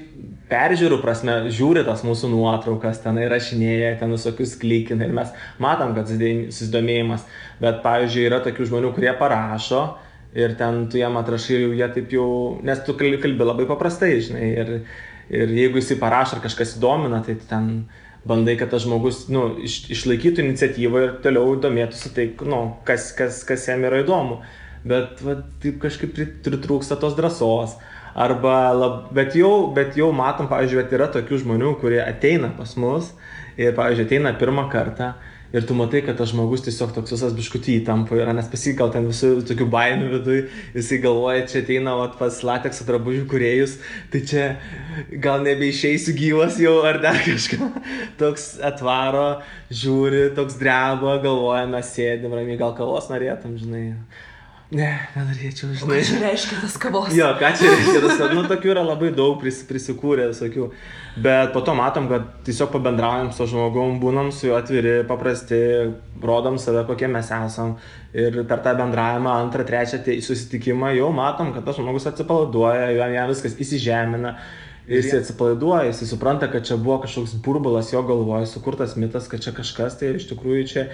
peržiūrų prasme žiūri tas mūsų nuotraukas, ten įrašinėja, ten visokius klikina ir mes matom, kad susidomėjimas, bet pavyzdžiui yra tokių žmonių, kurie parašo ir ten tu jam atrašai ir jie taip jau, nes tu kalbi labai paprastai, žinai, ir jeigu jisai parašo ar kažkas įdomina, tai ten bandai, kad tas žmogus išlaikytų iniciatyvą ir toliau domėtųsi tai, kas jam yra įdomu, bet taip kažkaip pritrūksta tos drąsos. Bet jau matom, pavyzdžiui, yra tokių žmonių, kurie ateina pas mus ir, pavyzdžiui, ateina pirmą kartą ir tu matai, kad tas žmogus tiesiog toks visas biškutį įtampa yra, nes pasigal ten visų tokių baimių viduj, jisai galvoja, čia ateina pas latekso drabužių kūrėjus, tai čia gal nebeišeisiu gyvas jau ar dar kažką. Toks atvaro, žiūri, toks dreba, galvoja, mes sėdim ramiai, gal kavos norėtum, žinai. Ne, nenorėčiau, žinai. Ką čia reiškia tas kavos? Jo, ką čia reiškia tas kavos? Tokių yra labai daug prisikūrę visokių. Bet po to matom, kad tiesiog pabendraujam su žmogum, būnam su juo atviri, paprasti, rodom save, kokie mes esam. Ir per tą bendravimą, antrą, trečią susitikimą jau matom, kad tas žmogus atsipalaiduoja, jam viskas įsižemina. Jis atsipalaiduoja, jis supranta, kad čia buvo kažkoks burbulas jo galvoje, sukurtas mitas, kad čia kažkas, tai iš tikrųjų čia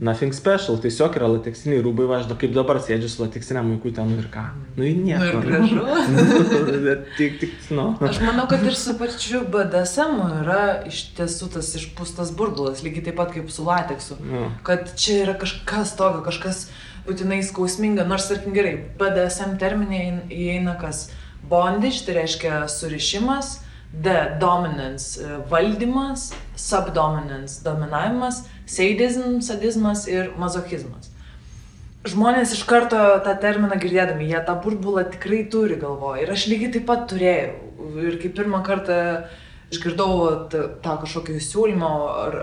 nothing special, tiesiog yra lateksiniai rūbai, važdo, kaip dabar sėdžiu su lateksiniam vaiku ten ir ką. Ir nieko. Aš manau, kad ir su pačiu BDSM yra iš tiesų tas išpūstas burbulas, lygiai taip pat kaip su lateksu. Kad čia yra kažkas tokio, kažkas būtinai skausminga, nors tarkim gerai, BDSM terminė įeina kas bondage, tai reiškia surišimas, dominance valdymas, subdominance dominavimas, sadizmas ir mazochizmas. Žmonės iš karto tą terminą girdėdami, jie tą burbulą tikrai turi galvoje. Ir aš lygiai taip pat turėjau. Ir kai pirmą kartą išgirdau tą kažkokį siūlymą,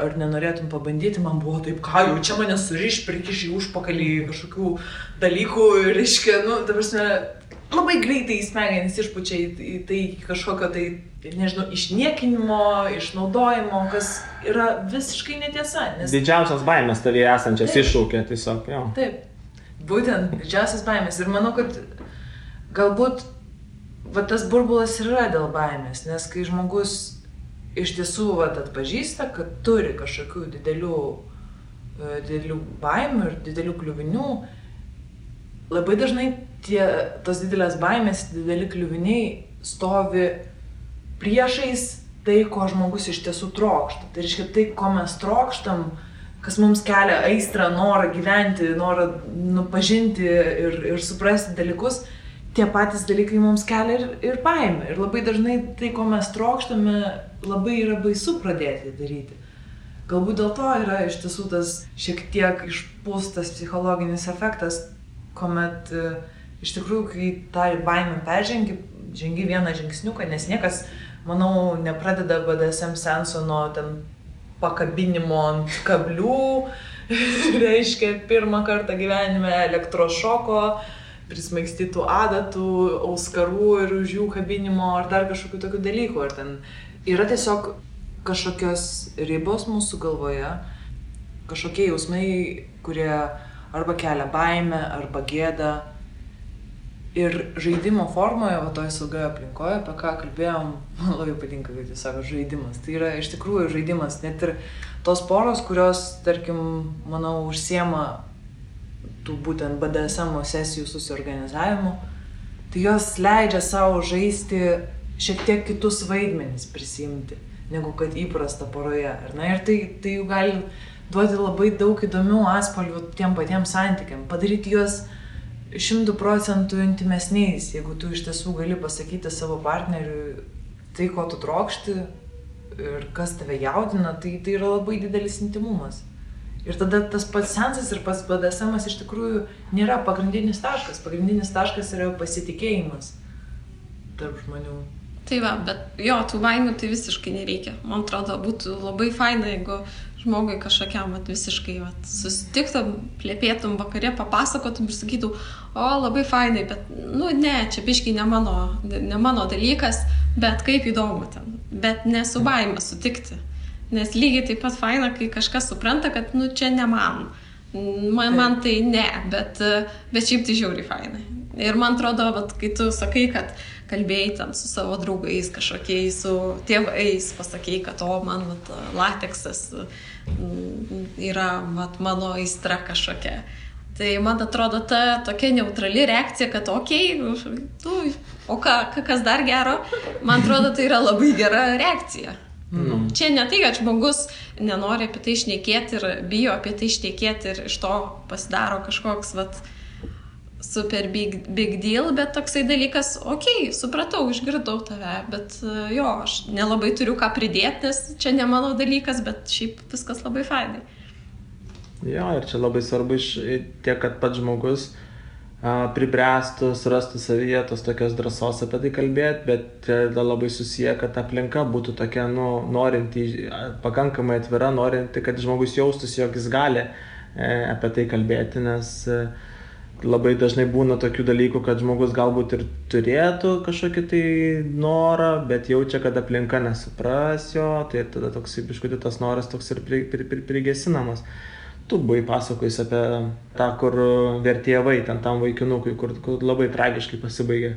ar nenorėtum pabandyti, man buvo taip, ką jau čia mane suriš, prikiš į užpakalį kažkokių dalykų ir reiškia, ta prasme, labai greitai smegenys išpučia į tai kažkokio tai, nežinau, išniekinimo, išnaudojimo, kas yra visiškai netiesa. Nes... Didžiausias baimės tavyje esančias iššūkė tiesiog, jo. Taip, būtent didžiausias baimės. Ir manau, kad galbūt tas burbulas yra dėl baimės, nes kai žmogus iš tiesų atpažįsta, kad turi kažkokių didelių baimių ir didelių kliuvinių, labai dažnai tos didelės baimės, dideli kliuviniai stovi priešais tai, ko žmogus iš tiesų trokšta. Tai reiškia tai, ko mes trokštam, kas mums kelia aistrą, norą gyventi, norą pažinti ir suprasti dalykus, tie patys dalykai mums kelia ir baimę. Ir labai dažnai tai, ko mes trokštame, labai yra baisu pradėti daryti. Galbūt dėl to yra iš tiesų tas šiek tiek išpūstas psichologinis efektas, kuomet iš tikrųjų, kai tą baimę žengi vieną žingsniuką, nes niekas, manau, nepradeda BDSM seanso nuo ten pakabinimo ant kablių, reiškia pirmą kartą gyvenime elektrošoko, prismaigstytų adatų, auskarų ir už jų kabinimo ar dar kažkokių tokių dalykų. Ar ten yra tiesiog kažkokios ribos mūsų galvoje, kažkokie jausmai, kurie arba kelia baimę, arba gėdą. Ir žaidimo formoje, toje saugioje aplinkoje, apie ką kalbėjom, man labai patinka, kaip jūs sako, žaidimas. Tai yra iš tikrųjų žaidimas. Net ir tos poros, kurios, tarkim, manau, užsiema tų būtent BDSM sesijų susiorganizavimu, tai jos leidžia savo žaisti šiek tiek kitus vaidmenis prisiimti, negu kad įprasta poroje. Ir tai jau gali duoti labai daug įdomių atspalvių tiem patiems santykiam, padaryti juos 100% intimesniais, jeigu tu iš tiesų gali pasakyti savo partneriui tai, ko tu trokšti ir kas tave jaudina, tai yra labai didelis intimumas. Ir tada tas pats seansas ir pats BDSM iš tikrųjų nėra pagrindinis taškas. Pagrindinis taškas yra pasitikėjimas tarp žmonių. Tai va, bet jo, tų baimių tai visiškai nereikia. Man atrodo, būtų labai faina, jeigu žmogui kažkokiam visiškai susitiktum, plėpėtum vakare, papasakotum ir sakytum, labai fainai, bet, ne, čia biškai ne mano dalykas, bet kaip įdomu ten. Bet nesu baimė sutikti. Nes lygiai taip pat faina, kai kažkas supranta, kad, čia ne man. Man tai ne, bet šiaip tai žiauriai fainai. Ir man atrodo, vat, kai tu sakai, kad kalbėjai ten su savo draugais kažkokiais, su tėvais, pasakei, kad man vat, lateksas yra vat, mano aistra kažkokia. Tai man atrodo ta tokia neutrali reakcija, kad o kas dar gero, man atrodo, tai yra labai gera reakcija. Čia ne tai, kad žmogus nenori apie tai šnekėti ir bijo apie tai šnekėti ir iš to pasidaro kažkoks super big deal, bet toksai dalykas, supratau, išgirdau tave, bet aš nelabai turiu ką pridėti, nes čia ne mano dalykas, bet šiaip viskas labai fainai. Jo, ir čia labai svarbu tiek, kad pats žmogus pribręstų, surastų savyje tos tokios drąsos apie tai kalbėti, bet labai susiję, kad aplinka būtų tokia, norinti, pakankamai atvira, norinti, kad žmogus jaustųsi, jog jis gali apie tai kalbėti, nes labai dažnai būna tokių dalykų, kad žmogus galbūt ir turėtų kažkokį tai norą, bet jaučia, kad aplinka nesupras jo, tai tada toks biškutį tas noras toks ir prigesinamas. Tu buvai pasakojus apie tą, kur vertėjavai, ten tam vaikinukui, kur labai tragiškai pasibaigė.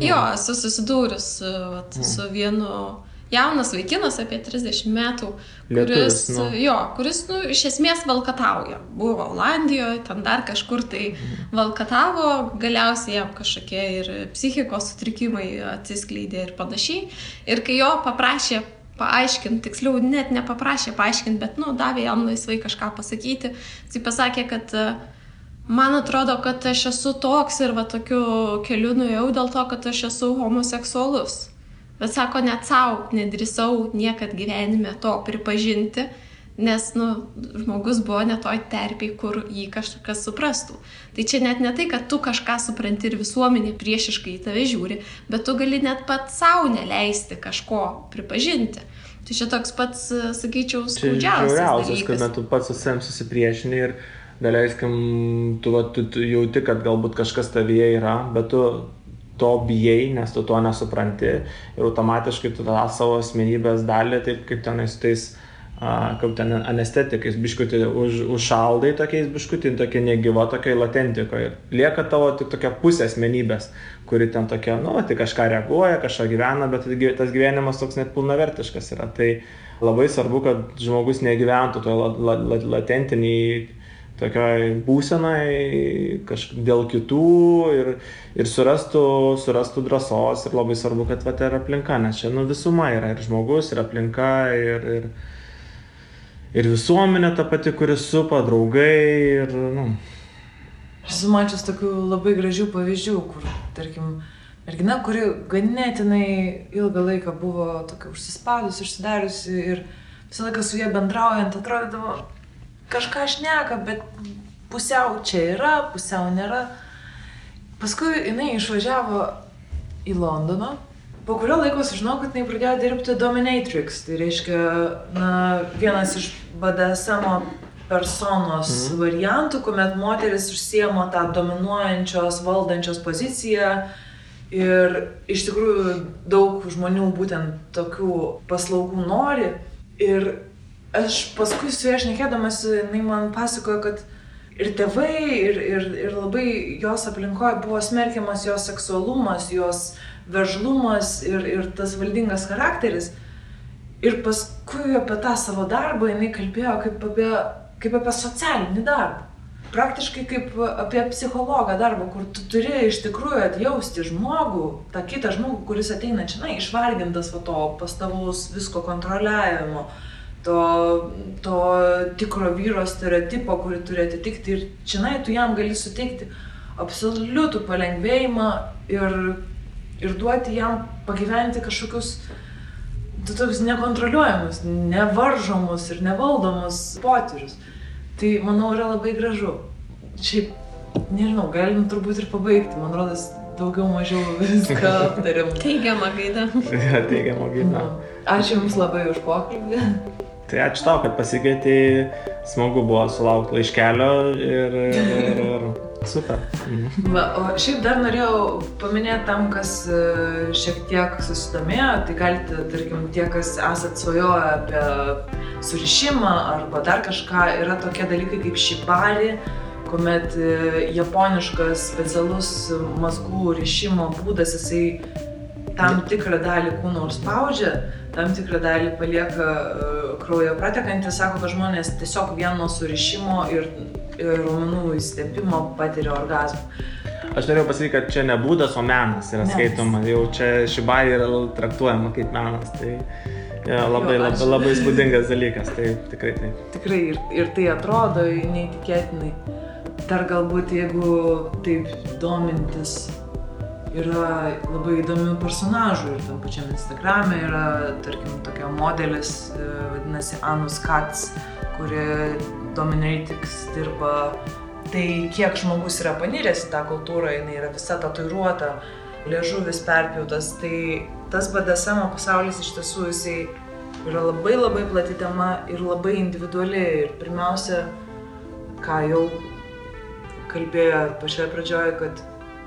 Jo, esu susidūrus su vienu jaunas vaikinas apie 30 metų, kuris iš esmės valkatauja. Buvo Olandijoje, ten dar kažkur tai valkatavo, galiausiai jam kažkokie ir psichikos sutrikimai atsiskleidė ir panašiai. Ir kai jo paprašė paaiškinti, tiksliau net nepaprašė paaiškinti, bet davė jam laisvai kažką pasakyti. Jis pasakė, kad man atrodo, kad aš esu toks ir tokiu keliu nuėjau dėl to, kad aš esu homoseksualus. Bet sako, net savo nedrįsau niekad gyvenime to pripažinti, nes žmogus buvo ne toj terpėj, kur jį kažkas suprastų. Tai čia net ne tai, kad tu kažką supranti ir visuomenė priešiškai į tave žiūri, bet tu gali net pats savo neleisti kažko pripažinti. Tai čia toks pats, sakyčiau, skaudžiausias dalykas. Kad tu pats su savim susipriešini ir daleiskim, tu jauti, kad galbūt kažkas tavyje yra, bet tu to bijai, nes tu to nesupranti ir automatiškai tu tą savo asmenybės dalį, taip kaip tenais tais kaip ten anestetikais biškutį užšaldai tokiais biškutį, tokia negyva, tokia latentikoje. Lieka tavo tik tokia pusė asmenybės, kuri ten tokia, tai kažką reaguoja, kažką gyvena, bet tas gyvenimas toks net pilnavertiškas yra. Tai labai svarbu, kad žmogus negyventų toje latentiniai tokioj būsenai dėl kitų ir surastų drąsos ir labai svarbu, kad ir aplinka, nes čia visuma yra ir žmogus, ir aplinka, ir visuomenė ta pati, kuris supa, draugai ir, Aš esu mačius tokių labai gražių pavyzdžių, kur, tarkim, mergina, kuri ganėtinai ilgą laiką buvo tokia užsispadusi, užsidariusi ir visą laiką su jie bendraujant atrodydavo, kažką šneka, bet pusiau čia yra, pusiau nėra. Paskui jinai išvažiavo į Londoną. Po kurio laiko sužinau, kad jinai pradėjo dirbti dominatrix. Tai reiškia, vienas iš BDSM personos variantų, kuomet moteris užsiema tą dominuojančios, valdančios poziciją. Ir iš tikrųjų daug žmonių būtent tokių paslaugų nori. Ir aš paskui su ja šnekėdamas, jinai man pasakojo, kad ir tėvai, ir labai jos aplinkoje buvo smerkiamas jos seksualumas, jos veržlumas ir tas valdingas charakteris. Ir paskui apie tą savo darbą jinai kalbėjo kaip apie socialinį darbą. Praktiškai kaip apie psichologą darbą, kur tu turi iš tikrųjų atjausti žmogų, tą kitą žmogų, kuris ateina čia, išvargintas to pastovaus visko kontroliavimo, to tikro vyro stereotipo, kurį turi atitikti. Ir čia tu jam gali suteikti absoliutų palengvėjimą ir duoti jam pagyventi kažkokius tokius nekontroliuojamus, nevaržomus ir nevaldomus potyrius. Tai, manau, yra labai gražu. Šiaip, nežinau, galim turbūt ir pabaigti. Man rodos, daugiau mažiau viską aptarėm. Teigiamą gaidą. Teigiamą gaidą. Ačiū Jums labai už pokalbį. Tai ačiū tau, kad pasikvietei. Smagu buvo sulaukti laiškelio ir super. O šiaip dar norėjau paminėti tam, kas šiek tiek susidomėjo, tai galite, tarkim, tie, kas esat svajoję apie surišimą arba dar kažką, yra tokie dalykai kaip šibari, kuomet japoniškas specialus mazgų rišimo būdas, jisai tam tikrą dalį kūno spaudžia, tam tikrą dalį palieka kraujo pratekantį, sako, kad žmonės tiesiog vieno surišimo ir raumenų įstepimo patiria orgazmą. Aš norėjau pasakyti, kad čia ne būdas, o menas yra skaitoma. Jau čia šibai yra traktuojama kaip menas. Tai labai įspūdingas dalykas. Tai tikrai taip. Tikrai ir tai atrodo neįtikėtinai. Dar galbūt, jeigu taip domintis, yra labai įdomių personažų ir tam pačiam Instagrame yra, tarkim, tokia modelis, vadinasi Anus Katz, kuri Dominatrix dirba. Tai kiek žmogus yra paniręs į tą kultūrą, jinai yra visa tatuiruota, liežuvis perpjautas, tai tas BDSM pasaulis iš tiesų jisai yra labai plati tema ir labai individuali. Ir pirmiausia, ką jau kalbėjo pačioje pradžioje, kad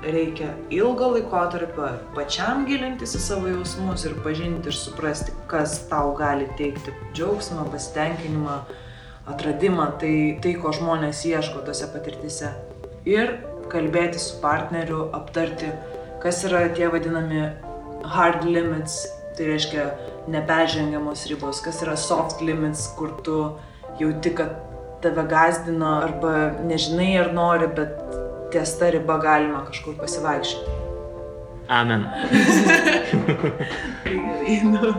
reikia ilgo laikotarpio pačiam gilintis į savo jausmus ir pažinti ir suprasti, kas tau gali teikti džiaugsmą, pasitenkinimą, atradimą, tai ko žmonės ieško tose patirtyse. Ir kalbėti su partneriu, aptarti, kas yra tie vadinami hard limits, tai reiškia neperžengiamos ribos, kas yra soft limits, kur tu jauti, kad tave gąsdino arba nežinai ar nori, bet ties ta riba galima kažkur pasivaikščioti. Amen. Tai gerai,